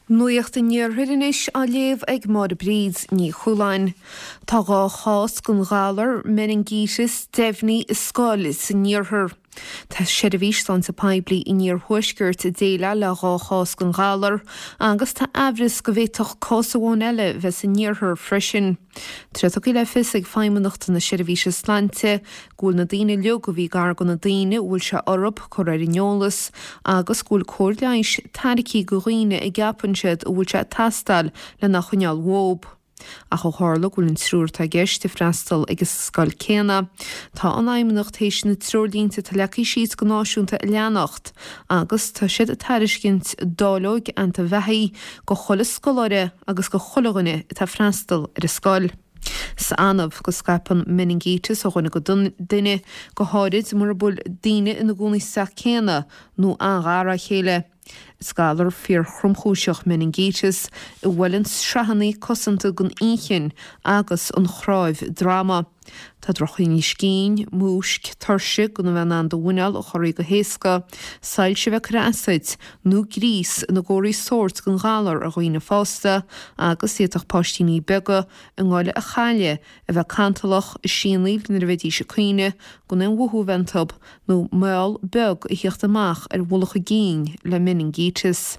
Nuacht an Iarthair anois á léamh ag Máire Bríd Ní Chualáin. Tá 2 chás den ghalar meiningíteas deimhnithe i scoil san iarthar. Tá Seirbhís Sláinte Poiblí an Iarthuaiscirt ag déileáil le 2 chás den ghalar agus tá aimhreas go bhféadfadh cás amháin eile bheith san iarthar freisin. Tá sé tugtha le fios ag Feidhmeannacht na Seirbhíse Sláinte go bhfuil na daoine uilig a bhí gar do na daoine a bhfuil sé orthu curtha ar an eolas agus go bhfuil cóir leighis tairgthe do dhaoine a gceapann siad a bhfuil sé ag teastáil lena choinneáil uathu. Ach ó tharla go bhfuil an triúr atá i gceist ag freastal ag an scoil céanna, tá an Fheidhmeannacht théis na treoirlínte atá leagtha síos go náisiúnta a leanacht agus tá siad ag tairiscint dáileoig antaibheathaigh go chuile scoláire agus go chuile dhuine atá ag freastal ar an scoil. Is annamh go scaipeann meiningíteas ó dhuine go duine, go háirid mura bhfuil daoine ina gcónaí sa teach céanna nó an-ghar dá chéile. Is galar fíorthromchúiseach meiningíteas a bhuaileann sraitheanna cosanta den inchinn agus an chnáimh droma. Tá drochthinneas cinn, múisc, tuirse, gan a bheith in ann do mhuineál a chorraí go héasca, soilse a bheith ag cur as duit, nó gríos ina gcomharthaí sóirt den ghalar ar dhaoine fásta agus d'fhéadfadh páistíní beaga a ngoile a chailleadh, a bheith cantalach, ag sianaíl nuair a bheidís ag caoineadh, gan aon mhothú a bheith iontu, nó meall beag a thíocht amach ar mhullach a gcinn le meiningíteas.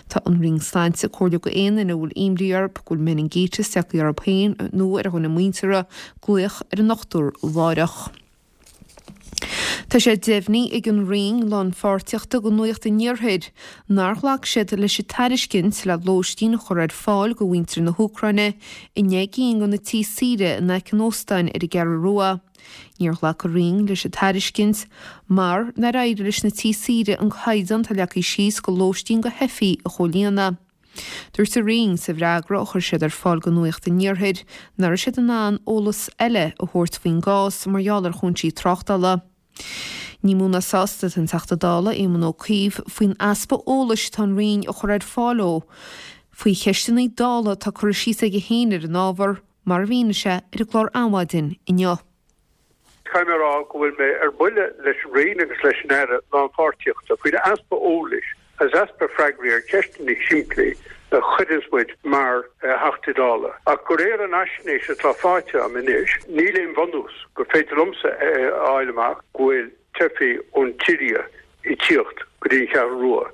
Tá an Roinn Sláinte ag comhairliú go aon duine a bhfuil imní orthu go bhfuil meiningíteas tagtha orthu féin nó ar dhuine muinteartha, glaoch ar an ndochtúir láithreach. Tá sé deimhnithe ag an Roinn Lánpháirtíochta do Nuacht an Iarthair nár ghlac siad leis an tairiscint le lóistín a chur ar fáil do mhuintir na hÚcráine i ndeich gcinn de na tithe saoire in aice an óstáin ar an gCeathrú Rua. Níor ghlac an Roinn leis an tairiscint mar nár éirigh leis na tithe saoire an caighdeán atá leagtha síos do lóistín do theifigh a chomhlíonadh. Dúirt an Roinn sa bhfreagra a chuir siad ar fáil do Nuacht an Iarthair nach raibh siad in ann eolas eile a thabhairt faoin gcás mar gheall ar chúinsí tráchtála. Ní mó ná sásta atá an Teachta Dála Éamon Ó Cuív faoin easpa eolais atá an Roinn a chur ar fáil dó faoi cheisteanna Dála atá curtha síos aige féin ar an ábhar, mar a mhínigh sé ar an gclár Adhmhaidin inniu. Caithfidh mé a rá go bhfuil mé ar buile leis an Roinn agus leis an Aire Lánpháirtíochta faoin easpa eolais agus easpa freagraí ar cheisteanna simplí a chuireanns muid mar Theachtaí Dála. Ach de réir an fhaisnéis atá faighte agam anois, níl aon bhunús gur féidir liomsa a fháil amach go bhfuil teifigh ón tSiria ag tíocht go dtí an Cheathrú Rua.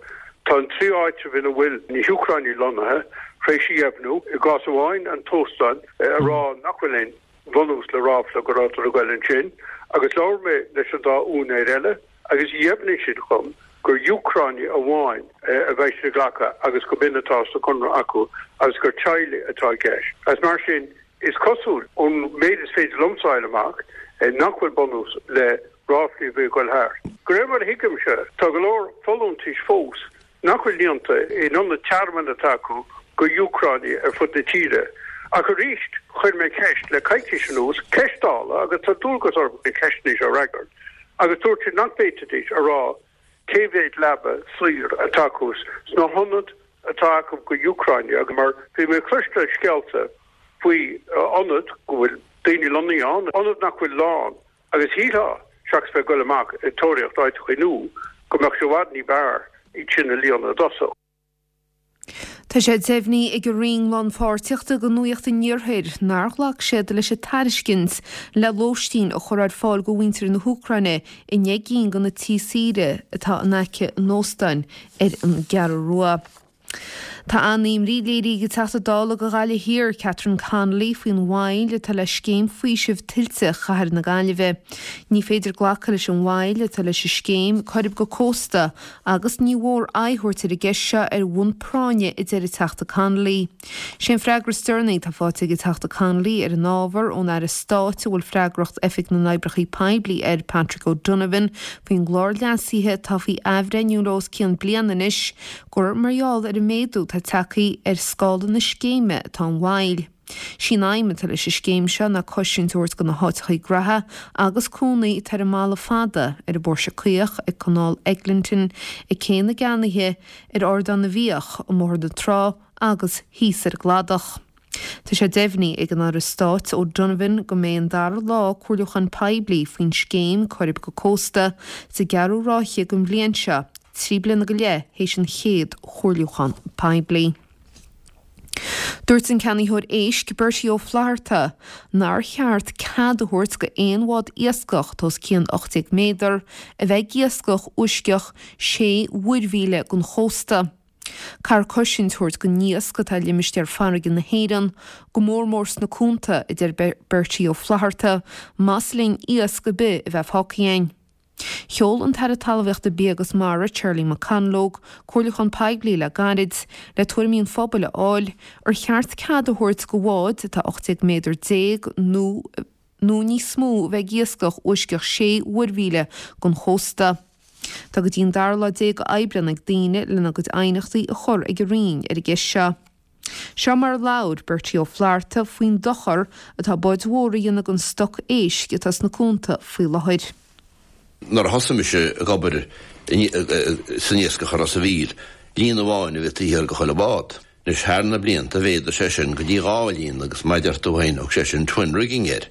Tá an trí áitreabh ina bhfuil na hÚcránaigh lonnaithe tar éis a dheimhniú, i gcás amháin an t-óstán, a rá nach bhfuil aon bhunús le ráfla go rabhadar ag goil ansin agus labhair mé leis an dá úinéir eile agus dheimhnigh siad dhom gur Úcránaigh amháin a bheidh siad ag glacadh agus go b'in atá sa chonradh acu agus gur teaghlaigh atá i gceist. Agus mar sin, is cosúil, ón méid is féidir liomsa a fháil amach, nach bhfuil bunús le ráflaí a bhí ag goil thart. De réir mar a thuigimse, tá go leor folúntais fós nach bhfuil líonta in ionaid tearmainn atá acu go Úcránaigh ar fud na tíre. Ach arís, chuir mé ceist le coicís anuas, ceist Dála, agus tá dualgas orm na ceisteanna seo a fhreagairt, agus dúirt siad nach bhféadfaidís a rá cé mhéad leaba saor atá acu sna hionaid atá acu go Úcránaigh agus mar bhí mé ag cloisteáil scéalta faoi ionaid go bhfuil daoine lonnaithe ann, ionaid nach bhfuil lán. Agus shílfeá, seachas bheith ag goil amach ag tóraíocht áiteachaí nua, go mbeadh sé i bhfad ní b'fhearr iad sin a líonadh i dtosach. Tá sé deimhnithe ag an Roinn Lánpháirtíochta do Nuacht an Iarthair nár ghlac siad leis an tairiscint le lóistín a chur ar fáil do mhuintir na hÚcráine i ndeich gcinn de na tithe saoire atá in aice an óstáin ar an gCeathrú Rua. Tá an-imní léirithe ag an Teachta Dála do Ghaillimh Thiar, Catherine Connolly, faoin mhoill atá le scéim faoisimh tuilte Chathair na Gaillimhe. Ní féidir glacadh leis an mhoill atá leis an scéim Coirib go Cósta agus ní mhór aghaidh a thabhairt ar an gceist seo ar bhonn práinne, a deir an Teachta Connolly. Sé an freagra is deireanaí atá faighte ag an Teachta Connolly ar an ábhar ón Aire Stáit a bhfuil freagracht Oifig na nOibreacha Poiblí air, Patrick O'Donovan, faoin gclár leasaithe atá faoi athbhreithniú le os cionn bliana anois, gur mar gheall ar an méadú atá tagtha ar scála na scéime atá an mhoill. Sí an aidhm atá leis an scéim seo ná cosaint a thabhairt do na háiteachaí graithe agus cónaí atá ar an mBalla Fada, ar an bPóirse Caoch, ag Canáil Eglinton, ag Cé na gCeannaithe, ar Ardán na bhFiach, i mBóthar na Trá agus thíos ar an gCladach. Tá sé deimhnithe ag an Aire Stáit O'Donovan go mbeidh an dara lá comhairliúchán poiblí faoin scéim Coirib go Cósta sa gceathrú ráithe den bhliain seo, 3 bliana go leith théis an chéad chomhairliúchán poiblí. Dúirt an ceannaitheoir éisc, Bertie Ó Flatharta, nár cheart cead a thabhairt go aon bhád iascach atá os cionn 18 méadar a bheith ag iascach uisceach sé mhuirmhíle den chósta. Caithfear cosaint a thabhairt don iasc atá i limistéar farraige na hÉireann, go mór mór sna cuanta, a deir Bertie Ó Flatharta, más linn iasc ar bith a bheith fágtha againn. Sheol an tAire Talmhaíochta, Bia agus Mara, Charlie McConalogue, comhairliúchán poiblí le gairid le tuairimí an phobail a fháil ar cheart cead a thabhairt go bháid atá 18 méadar nó nó níos mó a bheith ag iascach uisceach sé mhuirmhíle den chósta. Tá go dtí an dara lá déag Aibreán ag daoine lena gcuid aighneachtaí a chur ag an Roinn ar an gceist seo. Seo mar a labhair Bertie Ó Flatharta faoin dochar atá báid mhóra a dhéanamh don stoc éisc atá sna cuanta faoi láthair. Nuair a thosaigh mise ag obair san iascach i Ros a' Mhíl, líon amháin a bhí taobh thiar de chuile bhád. Anois thar na blianta mhéadaigh sé sin go dtí dhá líon agus mar a deir tú féin thug sé sin twin rigging air.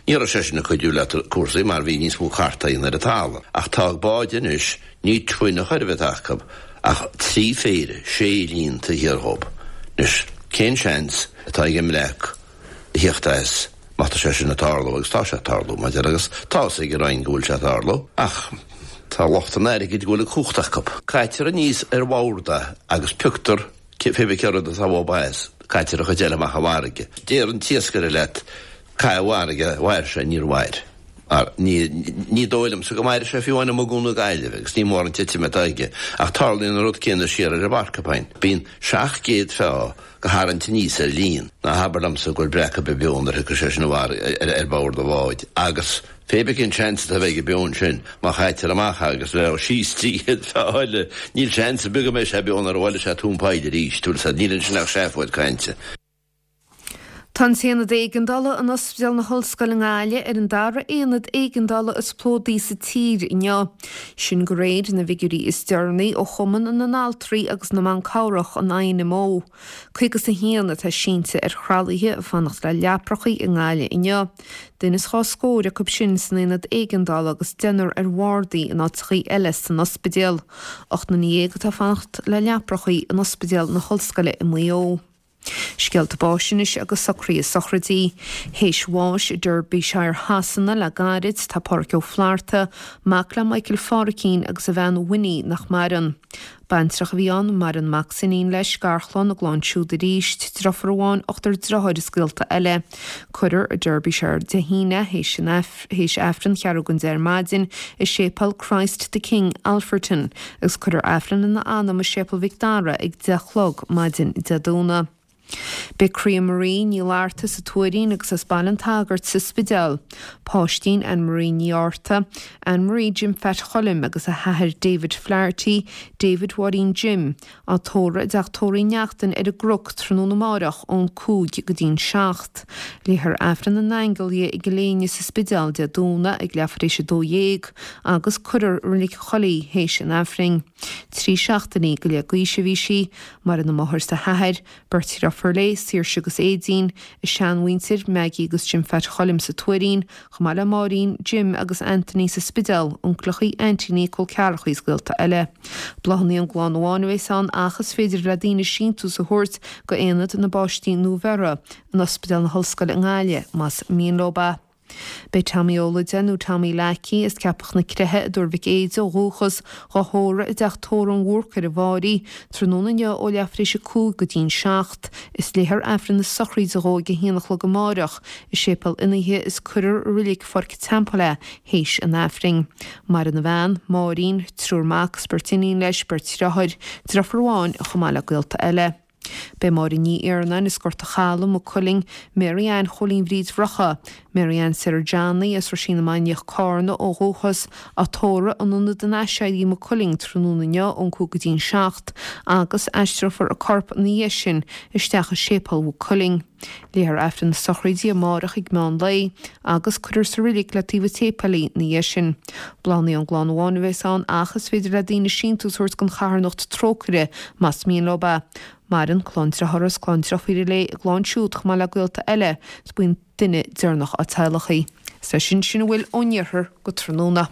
Ní raibh sé sin ag cuidiú le cúrsaí mar bhí níos mó cartaí ar an talamh. Ach tá báid anois, ní twin a chor ar bith atá acu ach trí phéire, sé líon taobh thiar dhób. Anois cén seans atá ag an mbreac a thíocht as má tá sé sin ag tarlú agus tá sé ag tarlú mar deir agus tá fhios ag an Roinn go bhfuil sé ag tarlú ach tá lucht an airgid go bhfuil an cumhacht acu. Caitear aníos ar bhord é agus pioctar pé bith cé rud atá uathub as, caitear an chuid eile amach i bhfarraige. Deir an t-iascaire leat caith i bhfarraige, mhair sé, níor mhair. Mar ní, ní dóigh liomsa go mairfidh sé fiú amháin amuigh i gCuan na Gaillimhe agus ní mór an titim atá aige. Ach tarlaíonn an rud céanna siar ar an bPorcupine. Bíonn 700 feá go tharraingt aníos ar líon. Ná habair liomsa go bhfuil breac ar bith beo nuair a thiocfaidh sé sin ar bord an bháid. Agus pé bith cén seans atá a bheidh beo ansin, má chaitear amach é agus leo síos 300 feá eile, níl seans ar bith go mbeidh sé beo nuair a bhuailfidh sé tóin poill arís. Bhfuil 'fhios a'd, níl ansin ach seafóid cainte. Tá an tAonad Éigeandála in Ospidéal na hOllscoile i nGaillimh ar an dara aonad éigeandála is plódaí sa tír inniu. Sin de réir na bhfigiúirí is deireanaí ó Chumann na nAltraí agus na mBan Cabhrach, an INMO. 51 atá sínte ar thralaithe ag fanacht le leaprachaí i nGaillimh inniu. Duine is dhá scór acu sin san aonad éigeandála agus deichniúr ar bhardaí in áiteachaí eile san ospidéal. 18 nduine atá ag fanacht le leaprachaí in Ospidéal na hOllscoile i Maigh Eo. Scéalta báis anois agus socruithe sochraidí. Théis bháis i Derbyshire Shasana le gairid, tá Pádhraic Ó Flatharta, mac le Michael Phádhraicín agus a bhean Winnie nach maireann. Baintreach a bhí ann, maireann mac 's iníon leis, garchlann, a gclann siúd arís, driofúr amháin, ochtar driotháir is gaolta eile. Cuirfear i Derbyshire Dé hAoine, théis an. théis Aifreann cheathrú don 10 ar maidin i Séipéal Christ the King, Alfreton, agus cuirfear Aifreann ina anam i Séipéal Mhic Dara ag 10 a chlog maidin Dé Domhnaigh. Beidh Croía Marie Ní Fhlatharta sa Tuairín agus as Baile an tSagairt sa Spidéal. Páistín Anne Marie Ní Fhátharta, Anne Marie Jim Phat Choilm agus a hathair David Flaherty, David Mháirín Jim, Á tórramh i dTeach Tórraimh Uí Neachtain ar an gCnoc tráthnóna amáireach ón 5 go dtí'n 7. Léifear Aifreann na nAingeal di i gCill Éinne sa Spidéal Dé Domhnaigh ag leathuair tar éis 12 agus cuirfear i Reilig an Choilligh í théis an Aifrinn. Trí seachtainí go leith d'aois a bhí sí. Maireann a máthair 's a hathair, beirt dhriofúr léi, Saoirse agus Aedín, a seanmhuintir, Maggie agus Jim Phat Choilm sa Tuairín, chomh maith le Máirín, Jim agus Anthony sa Spidéal, uncaileachaí, aintíní, col ceathrachaí is gaolta eile. Bláthanna ón gclann amháin a bheas ann ach is féidir le daoine síntiús a thabhairt go Aonad na bPáistí Nuabheirthe in Ospidéal na hOllscoile i nGaillimh más mian leo é. Beidh Tommy Ó Loideáin nó Tommy Leacaí as Ceapach na Creiche i dTuar Mhic Éide ó dhúchas, dhá thórramh i dTeach Tórraimh an Bhúrcaigh ar an bhFáirí, tráthnóna inniu ó leathuair tar éis a 5 go dtí'n 7. Is léifear Aifreann na sochraide dhó ag a haon a chlog amáireach i Séipéal Fhionnaithe is cuirfear i Reilig Pháirc an Teampaill é théis an Aifrinn. Maireann a bhean, Máirín, triúr mac is beirt iníon leis, beirt dhriotháir, driofúr amháin chomh maith le gaolta eile. Beidh Máire Ní Iarnáin as Gort a' Chalaidh, Maigh Cuilinn, Mary Ann Chóilín Bhríd Bhrocha, Mary Ann Sarah Johnny as Roisín na Mainiach, Cárna ó dhúchas, á tórramh in Ionad an Aiséirí, Maigh Cuilinn, tráthnóna inniu ón 5 go dtí'n 7 agus aistreofar a corp ina dhiaidh sin isteach i Séipéal Mhaigh Cuilinn. Léifear Aifreann na sochraide amárach ag meán lae agus cuirfear sa reilig le taobh an tséipéil í ina dhiaidh sin. Bláthanna ón gclann amháin a bheas ann ach is féidir le daoine síntiús a thabhairt don charthanacht Trócaire más mian leo é. Maireann clann driothára is clann driofúire léi, a gclann siúd chomh maith le gaolta eile is buíon duine deireanach á teaghlach í. Is é sin sin a bhfuil ón iarthar go tráthnóna.